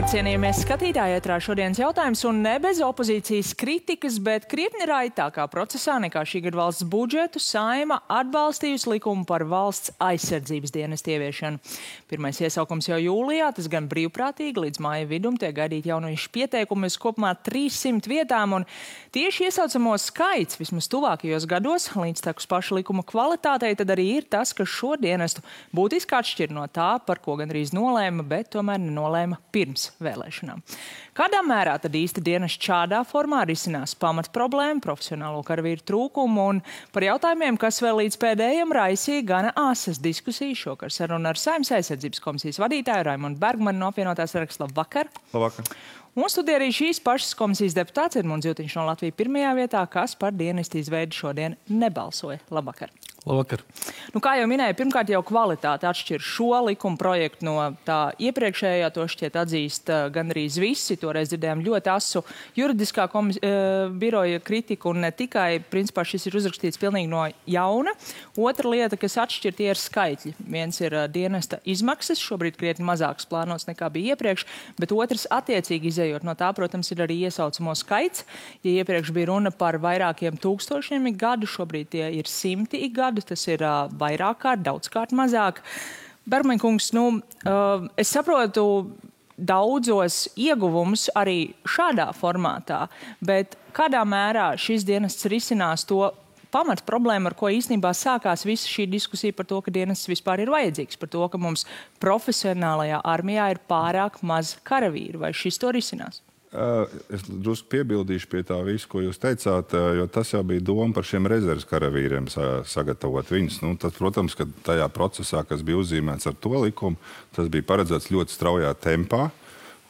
Sveicināti, cienījamie skatītāji, ētrā šodienas jautājums un ne bez opozīcijas kritikas, bet krietni raitākā procesā nekā šī gada valsts budžetu Saeima atbalstījusi likumu par valsts aizsardzības dienestu ieviešanu. Pirmais iesaukums jau jūlijā, tas gan brīvprātīgi, līdz māja vidum tiek gaidīt jauniešu pieteikumi uz kopumā 300 vietām, un tieši iesaucamo skaits vismaz tuvākajos gados, līdz tekus paša likuma kvalitātei, tad arī ir tas, ka šo dienestu būtiski atšķir no tā, par ko gandrīz nolēma, bet tomēr nenolēma pirms vēlēšanām. Kādā mērā tad īsti dienests šādā formā risinās pamat problēmu, profesionālo karavīru trūkumu un par jautājumiem, kas vēl līdz pēdējiem raisīja gana āsas diskusijas šokar sarunu ar Saeimas aizsardzības komisijas vadītāju Raimondu Bergmanu no apvienotās saraksta. Labvakar! Labvakar! Un studijā arī šīs pašas komisijas deputāts Edmunds Jutiņš no Latvijas pirmajā vietā, kas par dienestu izveidi šodien nebalsoja. Labvakar! Labvakar! Nu, kā jau minēju, pirmkārt jau kvalitāte atšķir šo likuma projektu no tā iepriekšējā, to šķiet atzīst gandrīz visi. Toreiz dzirdējām ļoti asu juridiskā biroja kritiku un ne tikai, principā šis ir uzrakstīts pilnīgi no jauna. Otra lieta, kas atšķir, tie ir skaitļi. Viens ir dienesta izmaksas, šobrīd krietni mazāks plānots nekā bija iepriekš, bet otrs attiecīgi izējot no tā, protams, ir arī iesaucamo skaits. Ja iepriekš bija runa par vairākiem tūkstošiem ik gadu, šobrīd tie ir simti ik gadu. Tas ir vairāk kārt, daudzkārt mazāk. Bergmaņa kungs, es saprotu daudzos ieguvumus arī šādā formātā, bet kādā mērā šis dienests risinās to pamat problēmu, ar ko īstenībā sākās visa šī diskusija par to, ka dienests vispār ir vajadzīgs, par to, ka mums profesionālajā armijā ir pārāk maz karavīru, vai šis to risinās? Es drusku piebildīšu pie tā visu, ko jūs teicāt, jo tas jau bija doma par šiem rezerves karavīriem sagatavot viņus. Tas, protams, ka tajā procesā, kas bija uzzīmēts ar to likumu, tas bija paredzēts ļoti straujā tempā.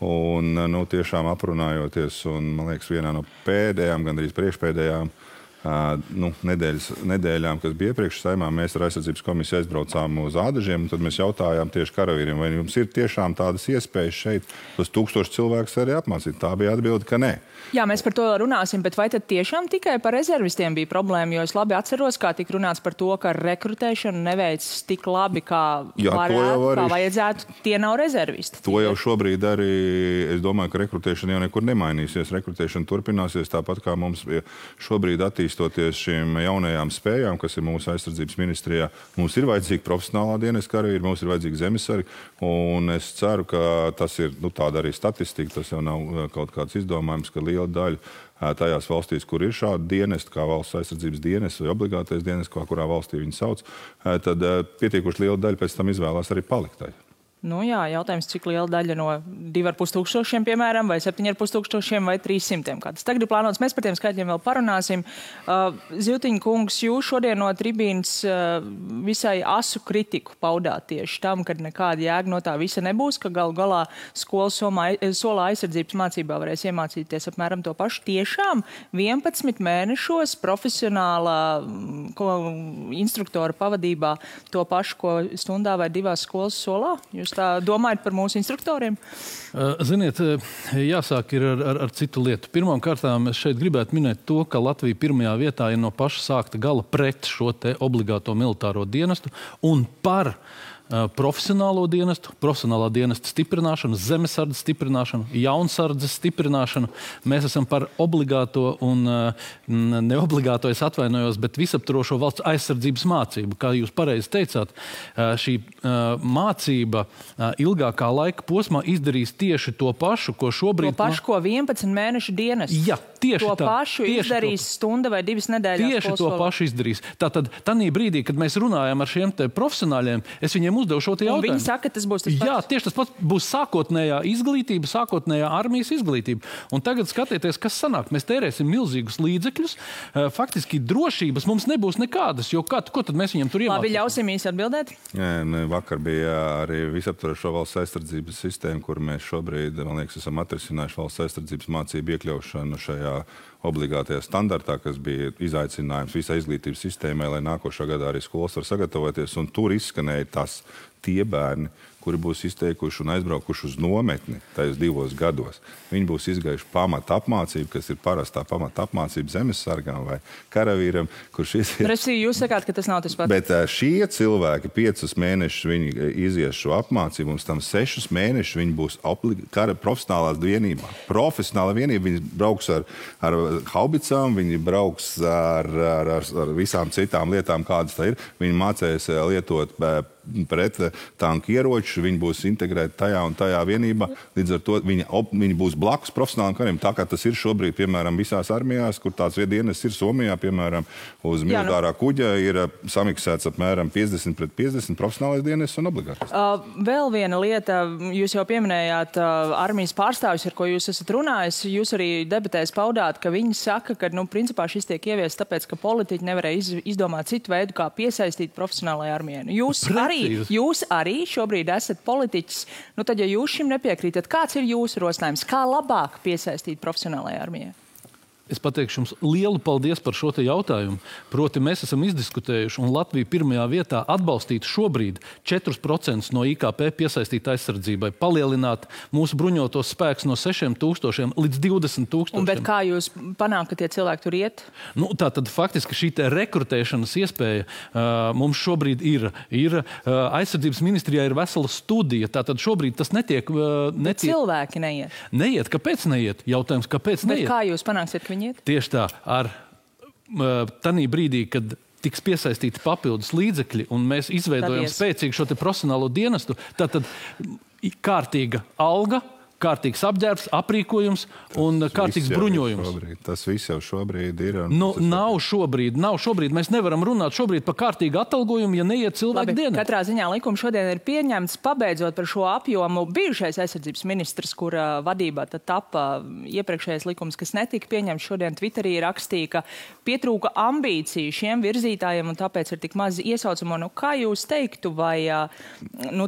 Un tiešām aprunājoties, un man liekas, vienā no pēdējām, gandrīz priekšpēdējām nedēļām, kas bija iepriekš Saeimā, mēs ar aizsardzības komisiju aizbraucām uz Ādažiem, un tad mēs jautājām tieši karavīriem, vai jums ir tiešām tādas iespējas šeit tos 1000 cilvēkus arī apmācīt. Tā bija atbilde, ka nē. Jā, mēs par to runāsim, bet vai tad tiešām tikai par rezervistiem bija problēma? Jo es labi atceros, kā tika runāts par to, ka rekrutēšana neveic tik labi, kā vajadzētu. Tie nav rezervisti. To jau šobrīd arī, es domāju, ka rekrutēšana jau nekur nemainīsies. Rekrutēšana turpināsies tāpat, kā mums šobrīd attīstoties šīm jaunajām spējām, kas ir mūsu aizsardzības ministrijā. Mums ir vajadzīga profesionālā dienesta karavīri, mums ir vajadzīga zemesargi, un es ceru, ka tas ir tāda arī statistika, tas jau nav kaut kāds izdomājums, ka liela daļa tajās valstīs, kur ir šādi dienesti, kā valsts aizsardzības dienests vai obligātais dienests, kurā valstī viņi sauc, tad pietiekoši liela daļa pēc tam izvēlās arī palikt tajā. Jā, jautājums, cik liela daļa no 2500, piemēram, vai 7500 vai 300. Kā tas tagad ir plānots, mēs par tiem skaitļiem vēl parunāsim. Jutiņa kungs, jūs šodien no tribīnas visai asu kritiku paudāt tieši tam, ka nekāda jēga no tā visa nebūs, ka galu galā skolas solā aizsardzības mācībā varēs iemācīties apmēram to pašu. Tiešām 11 mēnešos profesionālā instruktora pavadībā to pašu, ko stundā vai 2 skolas solā? Jūs tā domājat par mūsu instruktoriem? Ziniet, jāsāk ir ar citu lietu. Pirmām kārtām es šeit gribētu minēt to, ka Latvija pirmajā vietā ir no paša sākta gala pret šo te obligāto militāro dienestu un par profesionālo dienestu, profesionālā dienesta stiprināšanu, zemesardzes stiprināšanu, jaunsardzes stiprināšanu. Mēs esam par obligāto un neobligāto, es atvainojos, bet visaptvarošo valsts aizsardzības mācību. Kā jūs pareizi teicāt, šī mācība ilgākā laika posmā izdarīs tieši to pašu, ko šobrīd... To pašu, ko 11 mēnešu dienests. Jā, tieši to tā. Pašu izdarīs stunda vai 2 nedēļas. Tieši to pašu izdarīs. Tātad, tanī brīdī, kad mēs runājam ar šiem te profesionāļiem, es viņiem uzdevu šo te jautājumu. Viņi saka, ka tas būs tas pats. Jā, tieši tas pats būs sākotnējā izglītība, sākotnējā armijas izglītība. Un tagad skatieties, kas sanāk. Mēs tērēsim milzīgus līdzekļus. Faktiski drošības mums nebūs nekādas, jo ko tad mēs viņam tur iemācīsim? Labi, ļausim īsi atbildēt. Vakar bija arī visaptvarošo valsts aizsardzības sistēma, kur mēs šobrīd, man liekas, esam atrisinājuši valsts aizsardzības mācību iekļaušanu šajā obligātajā standartā, kas bija izaicinājums visai izglītības sistēmai, lai nākošā gadā arī skolas var sagatavoties. Un tur izskanēja tie bērni, kuri būs izteikuši un aizbraukuši uz nometni tajos 2 gados. Viņi būs izgājuši pamata apmācību, kas ir parastā pamata apmācība zemesargām vai karavīram, kurš ir... Resī, jūs sakāt, ka tas nav tas pats. Bet šie cilvēki 5 mēnešus viņi izies šo apmācību, un tam 6 mēnešus viņi būs profesionālās vienībā. Profesionāla vienība, viņi brauks ar haubicām, viņi brauks ar visām citām lietām, kādas tā ir. Viņi mācēs lietot pret tanku ieroču, viņi būs integrēti tajā un tajā vienībā. Līdz ar to viņi būs blakus profesionāliem kariem. Tā kā tas ir šobrīd, piemēram, visās armijās, kur tāds dienests ir Somijā, piemēram, uz militārā kuģa ir samiksēts apmēram 50 pret 50 profesionālais dienests un obligātais. Vēl viena lieta, jūs jau pieminējāt armijas pārstāvis, ar ko jūs esat runājis. Jūs arī debatēs paudāt, ka viņi saka, ka, principā šis tiek ieviests tāpēc, ka politiķi nevarēja izdomāt citu veidu, kā piesaistīt profesionālajai armijai. Jūs arī šobrīd esat politiķis. Tad, ja jūs šim nepiekrītat, kāds ir jūsu rosinājums? Kā labāk piesaistīt profesionālajai armijai? Es pateikšu jums lielu paldies par šo te jautājumu. Proti, mēs esam izdiskutējuši, un Latvija pirmajā vietā atbalstīt šobrīd 4% no IKP piesaistīt aizsardzībai, palielināt mūsu bruņotos spēkus no 6,000 līdz 20,000. Bet kā jūs panāk, ka tie cilvēki tur iet? Tātad faktiski šī te rekrutēšanas iespēja mums šobrīd ir. Aizsardzības ministrijā ir vesela studija, tātad šobrīd tas netiek... Bet cilvēki neiet. Neiet. Kāpēc neiet? Jautājums, kāpēc neiet? Bet kā jūs panāksiet, ka viņi iet? Tieši tā. Tanī brīdī, kad tiks piesaistīti papildus līdzekļi un mēs izveidojam spēcīgu šo te profesionālo dienestu, tātad kārtīga alga, kārtīgs apģērbs, aprīkojums un kārtīgs bruņojums. Tas viss jau šobrīd ir. Nav šobrīd. Mēs nevaram runāt šobrīd par kārtīgu atalgojumu, ja neiet cilvēku dienā. Katrā ziņā likums šodien ir pieņemts, pabeidzot par šo apjomu. Bijušais aizsardzības ministrs, kura vadībā tad tapa iepriekšējais likums, kas netika pieņemts, šodien Twitterī rakstīja, ka pietrūka ambīciju šiem virzītājiem un tāpēc ir tik maz iesaucamo. Kā jūs teiktu, vai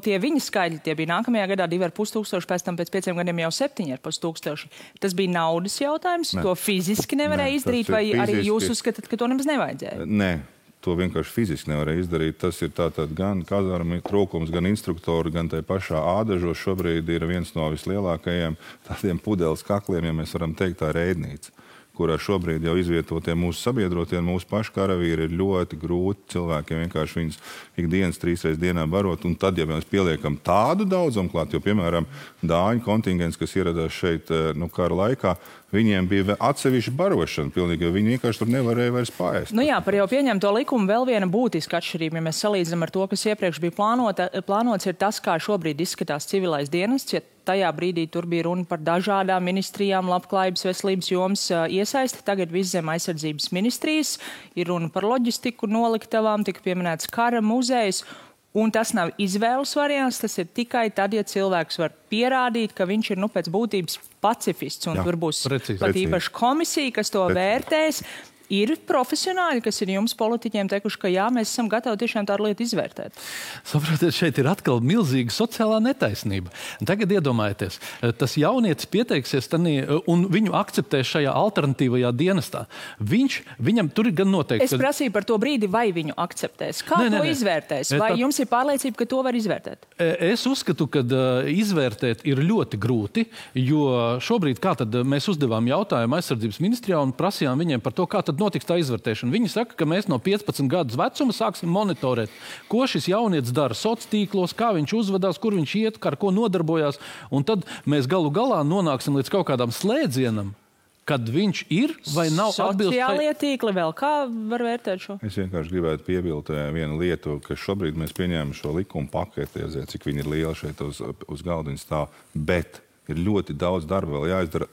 tie viņa skaidri, tie bija nākamajā gadā 2,500, pēc tam pēc 5 gadiem jau 7,500. Tas bija naudas jautājums, to fiziski nevarēja izdarīt, vai arī jūs uzskatāt, ka to nemaz nevajadzēja? Nē, to vienkārši fiziski nevarēja izdarīt. Tas ir tātad gan kazarmu trūkums, gan instruktoru, gan tai pašā ādažos šobrīd ir viens no vislielākajiem tādiem pudeles kakliem, ja mēs varam teikt, tā Reidnīca, kurā šobrīd jau izvietotie mūsu sabiedrotie un mūsu paši karavīri ir ļoti grūti cilvēkiem vienkārši viņus ikdienas 3 reizes dienā barot. Un tad, ja mēs pieliekam tādu daudzumu klāt, jo, piemēram, dāņu kontingents, kas ieradās šeit kara laikā, viņiem bija atsevišķa barošana, pilnīgi, jo viņi vienkārši tur nevarēja vairs paēst. Par jau pieņemto likumu vēl viena būtiska atšķirība, ja mēs salīdzinām ar to, kas iepriekš bija plānots, ir tas, kā šobrīd izskatās civilais dienests, ja tajā brīdī tur bija runa par dažādām ministrijām, labklājības, veselības jomas iesaisti. Tagad viss zem aizsardzības ministrijas ir runa par loģistiku, noliktavām, tika pieminēts kara muzejs. Un tas nav izvēles variants, tas ir tikai tad, ja cilvēks var pierādīt, ka viņš ir pēc būtības pacifists. Un tur būs pat īpaši komisija, kas to vērtēs. Ir profesionāļi, kas ir jums politiķiem teikuši, ka jā, mēs esam gatavi tiešām tādu lietu izvērtēt. Saprotiet, šeit ir atkal milzīga sociālā netaisnība. Tagad iedomājieties, tas jaunietis pieteiksies un viņu akceptēs šajā alternatīvajā dienestā. Viņam tur ir gan noteikti... Es prasīju par to brīdi, vai viņu akceptēs. Kā to izvērtēs? Vai jums ir pārliecība, ka to var izvērtēt? Es uzskatu, ka izvērtēt ir ļoti grūti, jo šobrīd kā tad mēs uzdevām jautājumu aizsardzības ministrijā un prasījām viņiem par to, kā tad notiks tā izvērtēšana. Viņi saka, ka mēs no 15 gadus vecuma sāksim monitorēt, ko šis jaunietis dara sociālos tīklos, kā viņš uzvedās, kur viņš iet, ar ko nodarbojās. Un tad mēs galu galā nonāksim līdz kaut kādam slēdzienam, kad viņš ir vai nav atbilst... Sociālie tīkli vēl kā var vērtēt šo? Es vienkārši gribētu piebilst vienu lietu, ka šobrīd mēs pieņēmām šo likumu paketi, cik viņi ir lieli šeit uz galdiņa stāv, bet ir ļoti daudz darba vēl jāizdara.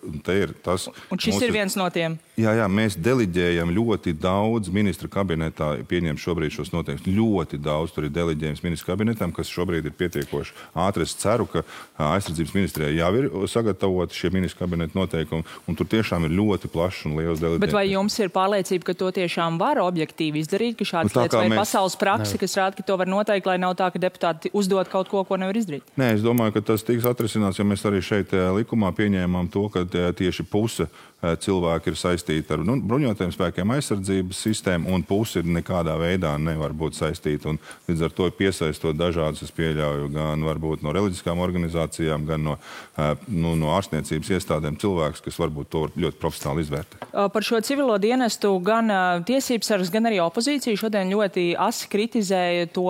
Un šis ir viens no tiem? Jā, mēs deliģējam ļoti daudz ministra kabinetā, pieņem šobrīd šos noteikumus. Ļoti daudz tur ir deliģējums ministra kabinetam, kas šobrīd ir pietiekoši ātri. Es ceru, ka aizsardzības ministrijā jau ir sagatavoti šie ministra kabineta noteikumi, un tur tiešām ir ļoti plašs un liels deliģējums. Bet vai jums ir pārliecība, ka to tiešām var objektīvi izdarīt, ka šādas lietas vai pasaules praksi, kas rāda, ka to var noteikt, lai nav tā, ka deputāti uzdod kaut ko, ko nevar izdarīt? Nē, es domāju, ka tas tiks atrisināts, jo mēs arī šeit likumā pieņēmām to, ka tieši puse cilvēki ir saistīti ar bruņotajiem spēkiem, aizsardzības sistēmu, un pusi nekādā veidā nevar būt saistīti. Un līdz ar to piesaistot dažādus, es pieļauju, gan varbūt no reliģiskām organizācijām, gan no ārstniecības iestādēm cilvēkus, kas varbūt to ļoti profesionāli izvērtē. Par šo civilo dienestu gan tiesībsargs, gan arī opozīcija šodien ļoti asi kritizēja to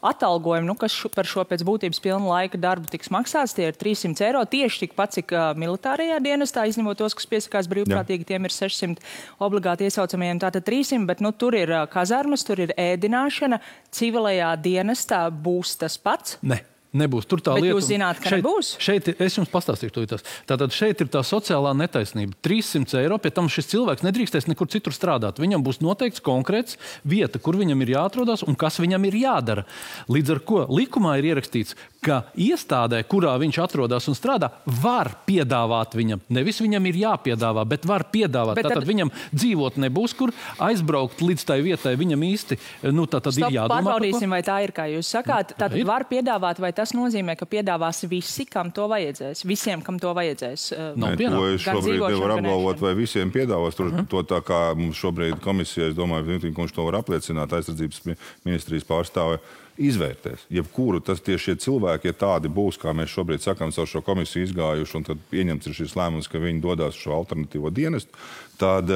atalgojumu, kas par šo pēc būtības pilna laika darbu tiks maksāts. Tie ir 300 eiro, tieši tikpat, cik militārajā dienestā, izņemot tos, kas piesakās brīvprātīgi, tiem ir 600 obligāti iesaucamajiem, tātad 300, bet tur ir kazarmas, tur ir ēdināšana, civilajā dienestā būs tas pats? Ne. Nebūs. Tur tā lieta. Bet jūs zināt, ka nebūs? Šeit es jums pastāstīšu to tās. Tātad šeit ir tā sociālā netaisnība. 300 eiro, pie tam šis cilvēks nedrīkstēs nekur citur strādāt. Viņam būs noteikts konkrēts vieta, kur viņam ir jāatrodas un kas viņam ir jādara. Līdz ar ko likumā ir ierakstīts, ka iestādē, kurā viņš atrodas un strādā, var piedāvāt viņam. Nevis viņam ir jāpiedāvā, bet var piedāvāt. Tātad viņam dzīvot nebūs, kur aizbraukt līdz tai vietai. Viņam īsti, tātad ir jādomā. Pārbaudīsim, vai tā ir, kā jūs sakāt. Tātad var piedāvāt, vai tas nozīmē, ka piedāvās visi, kam to vajadzēs? Visiem, kam to vajadzēs? To es šobrīd nevaru apgalvot, vai visiem piedāvās. To tā kā mums šobrīd komisija, es domāju, kurš to var apliecināt, aizsardzības ministrijas pārstāve, izvērtēs. Jebkuru tieši šie cilvēki, ja tādi būs, kā mēs šobrīd sakām, caur šo komisiju izgājuši, un tad pieņemts ir šis lēmums, ka viņi dodās šo alternatīvo dienestu, tad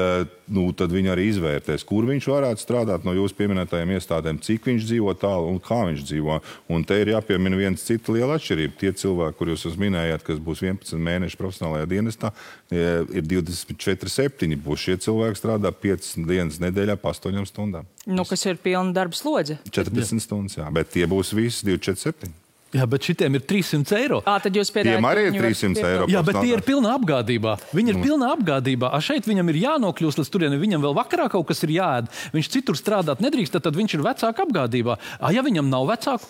viņi arī izvērtēs, kur viņš varētu strādāt no jūsu pieminētajiem iestādēm, cik viņš dzīvo tālu un kā viņš dzīvo. Un te ir jāpiemina viens cita liela atšķirība. Tie cilvēki, kur jūs minējāt, kas būs 11 mēneši profesionālajā dienestā, ir 24/7. Būs šie cilvēki strādā 5 dienas nedēļā pa 8 stundām. Kas ir pilna darba slodze? 40 stundas, jā. Bet tie būs visi 24/7. Jā, bet šitiem ir 300 eiro. Tad jūs piedāvājat... Tiem arī ir 300 eiro. Jā, bet tie ir pilnā apgādībā. Viņi ir pilnā apgādībā. Šeit viņam ir jānokļūst līdz turieni. Viņam vēl vakarā kaut kas ir jāēd. Viņš citur strādāt nedrīkst, tad viņš ir vecāka apgādībā. Ja viņam nav vecāku,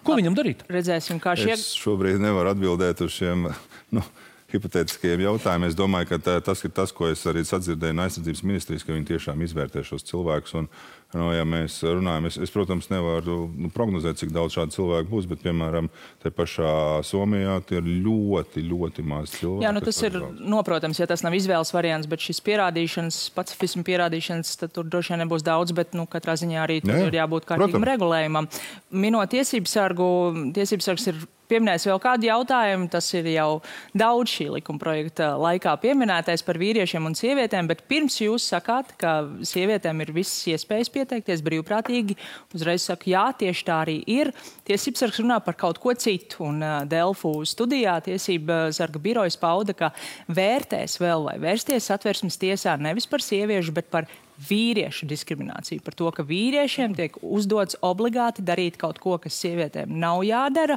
ko viņam darīt? Redzēsim, kā Es šobrīd nevaru atbildēt uz šiem... hipotētiskajiem jautājumiem. Es domāju, ka tas ir tas, ko es arī sadzirdēju no aizsardzības ministrijas, ka viņi tiešām izvērtē šos cilvēkus. Un, ja mēs runājam, es protams, nevaru prognozēt, cik daudz šādu cilvēku būs, bet, piemēram, te pašā Somijā tie ir ļoti, ļoti maz cilvēki. Jā, tas ir noprotams, ja tas nav izvēles variants, bet šis pierādīšanas, pacifismu pierādīšanas, tad tur droši vien nebūs daudz, bet, katrā ziņā arī tur ir jābūt kārtīgam regulējumam. Minot tiesībsargs ir pieminējis vēl kādu jautājumu, tas ir jau daudz šī likuma projekta laikā pieminētais par vīriešiem un sievietēm, bet pirms jūs sakāt, ka sievietēm ir visas iespējas pieteikties brīvprātīgi, uzreiz saku, jā, tieši tā arī ir. Tiesībsargs runā par kaut ko citu, un Delfu studijā tiesība sarga birojas pauda, ka vērtēs vēl vai vērsties Satversmes tiesā nevis par sieviešu, bet par vīriešu diskrimināciju, par to, ka vīriešiem tiek uzdots obligāti darīt kaut ko, kas sievietēm nav jādara.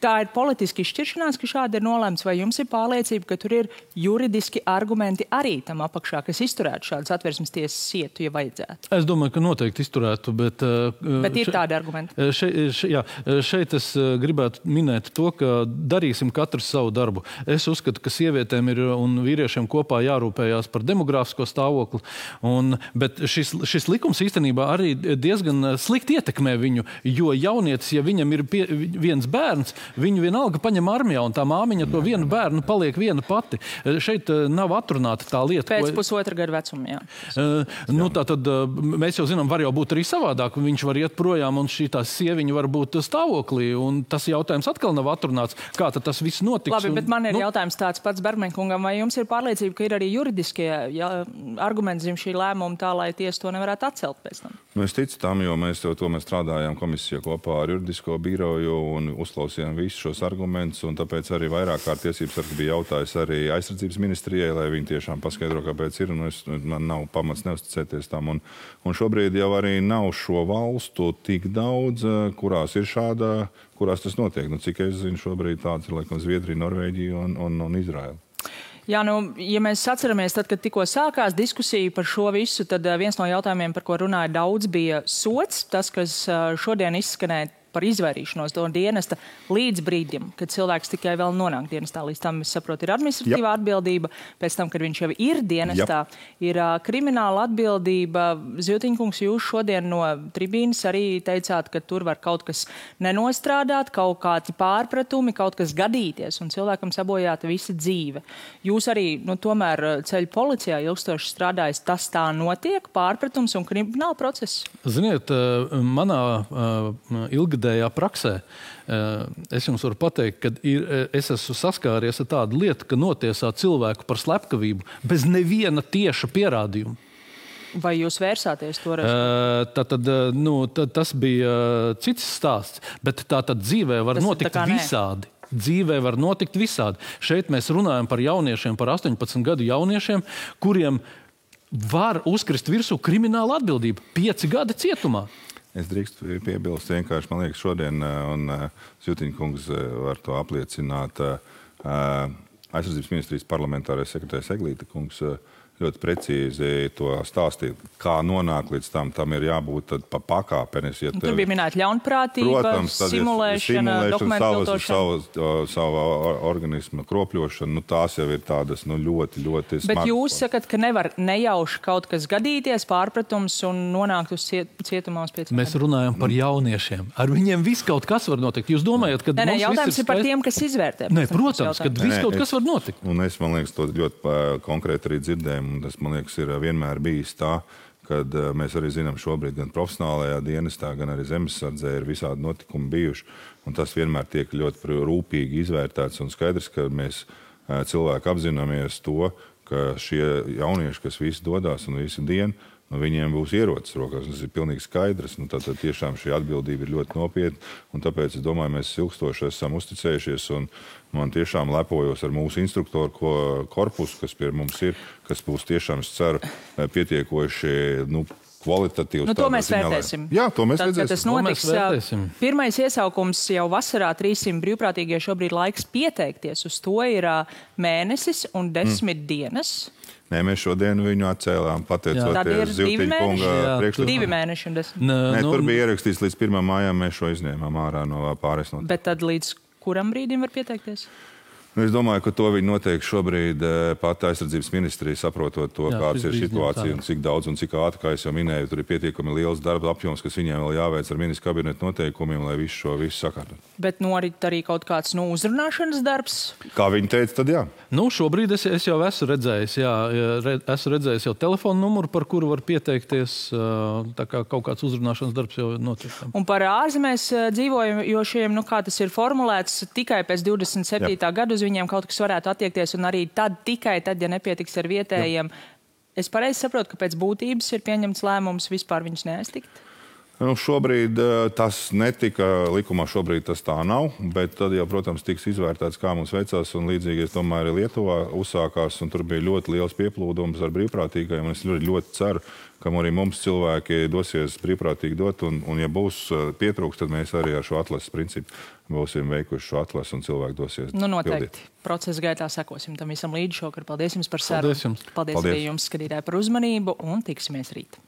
Tā ir politiski izšķiršanās, ka šādi ir nolēmts, vai jums ir pārliecība, ka tur ir juridiski argumenti arī tam apakšā, kas izturētu šādu Satversmes tiesas sietu, ja vajadzētu? Es domāju, ka noteikti izturētu, bet ir tādi argumenti. Šeit es gribētu minēt to, ka darīsim katrs savu darbu. Es uzskatu, ka sievietēm ir un vīriešiem kopā jārūpējās par demogrāfisko stāvokli, bet šis likums īstenībā arī diezgan slikti ietekmē viņu, jo jaunietis, ja viņam ir viens bērns, viņu vienalga paņem armijā, un tā māmiņa to vienu bērnu paliek viena pati. Šeit nav atrunāta tā lieta. Pēc pusotra gadu vecuma, jā. Tātad mēs jau zinām, var jau būt arī savādāk. Viņš var iet projām, un šī tā sieviņa var būt stāvoklī, un tas jautājums atkal nav atrunāts. Kā tad tas viss notiks? Labi, bet man ir jautājums tāds pats Bergmaņkungam, vai jums ir pārliecība, ka ir arī juridiskie argumenti zem šī lēmuma tā, lai tiesa to nevarētu atcelt pēc tam? Es ticu tam, jo mēs strādājām komisijā kopā ar juridisko biroju un uzklausījām visus šos argumentus, un tāpēc arī vairāk kārt tiesībsargs bija jautājis arī aizsardzības ministrijai, lai viņi tiešām paskaidro, kāpēc ir, un man nav pamats neusticēties tam. Un šobrīd jau arī nav šo valstu tik daudz, kurās ir kurās tas notiek. Cik es zinu, šobrīd tāds ir, laikam, Zviedrija, Norvēģija un Izraela. Jā, ja mēs atceramies, tad, kad tikko sākās diskusija par šo visu, tad viens no jautājumiem, par ko runāja daudz, bija sods. Tas, kas šodien izskanēja par izvairīšanos no dienesta līdz brīdim, kad cilvēks tikai vēl nonāk dienestā. Līdz tam, es saprotu, ir administratīvā atbildība, pēc tam, kad viņš jau ir dienestā, ir krimināla atbildība. Ziltiņkungs, jūs šodien no tribīnas arī teicāt, ka tur var kaut kas nenostrādāt, kaut kādi pārpratumi, kaut kas gadīties un cilvēkam sabojāta visa dzīve. Jūs arī, tomēr ceļu policijā ilgstoši strādājis, tas tā notiek, pārpratums un krimināla process? Ziniet, manā ilgadējā praksē es jums varu pateikt, ka es esmu saskāries ar tādu lietu, ka notiesā cilvēku par slepkavību bez neviena tieša pierādījuma. Vai jūs vērsāties toreiz? Tas bija cits stāsts, bet tātad dzīvē var notikt visādi. Dzīvē var notikt visādi. Šeit mēs runājam par jauniešiem, par 18 gadu jauniešiem, kuriem var uzkrist virsū krimināla atbildība. 5 gadi cietumā. Es drīkstu piebilst vienkārši, man liekas, šodien, un Ziltiņkungs var to apliecināt, aizsardzības ministrijas parlamentārais sekretārs Eglīte kungs ļoti precīzi to stāstīt, kā nonāk līdz tam ir jābūt pa pakāpenes. Ja tur bija minēta ļaunprātība, protams, simulēšana, dokumentu viltošana. Savu organismu kropļošana, tās jau ir tādas ļoti, ļoti smagas. Bet jūs sakat, ka nevar nejauši kaut kas gadīties, pārpratums un nonākt uz cietumā uz 5 gadiem? Mēs runājam par jauniešiem. Ar viņiem viss kaut kas var notikt. Jūs domājat, ka mums jautājums ir par tiem, kas izvērtē? Nē, protams, ka viss kaut kas var notikt. Un es, man liekas, to ļoti konkrēti arī dzirdēju. Tas, man liekas, ir vienmēr bijis tā, kad mēs arī zinām šobrīd gan profesionālajā dienestā, gan arī zemesardzē ir visādi notikumi bijuši. Un tas vienmēr tiek ļoti rūpīgi izvērtēts un skaidrs, ka mēs cilvēki apzināmies to, ka šie jaunieši, kas visi dodās un visi dienu, viņiem būs ierocis rokās. Tas ir pilnīgi skaidrs. Tātad tiešām šī atbildība ir ļoti nopietna. Un tāpēc, es domāju, mēs ilgstoši esam uzticējušies. Un man tiešām lepojos ar mūsu instruktoru korpusu, kas pie mums ir, kas būs tiešām, es ceru, pietiekoši kvalitatīvs. To mēs vērtēsim. Jā, to mēs redzēsim. Tas notiks. Pirmais iesaukums jau vasarā 300 brīvprātīgie šobrīd laiks pieteikties. Uz to ir mēnesis un 10 dienas. Nē, mēs šodien viņu atcēlām, pateicoties Ziltiņkunga priekšlikumam. 2 mēneši un 10. Nē, tur bija ierakstīts līdz 1. mājām, mēs šo izņēmām ārā no pārējais notiek. Bet tad līdz kuram brīdim var pieteikties? Es domāju, ka to viņi noteikti šobrīd pat aizsardzības ministrija saprotot to, kāds ir situācija un cik daudz un cik ātri, kā es jau minēju, tur ir pietiekami liels darba apjoms, kas viņiem vēl jāveic ar ministru kabinetu noteikumiem, lai visu sakārtot. Bet norit arī kaut kāds uzrunāšanas darbs? Kā viņi teica, tad jā. Šobrīd es jau esmu redzējis, esmu redzējis jau telefonu numuru, par kuru var pieteikties, tā kā kaut kāds uzrunāšanas darbs jau notiek. Un par ārzemēs dzīvojošiem, kā tas ir formulēts, tikai pēc 27. gadu viņiem kaut kas varētu attiekties, un arī tikai tad, ja nepietiks ar vietējiem. Es pareizi saprotu, ka pēc būtības ir pieņemts lēmums vispār viņus neaiztikt? Šobrīd tas netika likumā, šobrīd tas tā nav, bet tad jau, protams, tiks izvērtēts, kā mums veicās, un līdzīgi, es domāju, arī Lietuvā uzsākās, un tur bija ļoti liels pieplūdums ar brīvprātīgajiem, un es ļoti ceru, ka arī mums cilvēki dosies brīvprātīgi dot, un ja būs pietrūks, tad mēs arī ar šo atlases principu būsim veikuši šo atlasu, un cilvēki dosies noteikti. Pildīt. Procesa gaitā sekosim tam visam līdz šokar. Paldies jums par sarunu. Paldies arī jums, skatītāji, par uzmanību, un tiksimies rīt.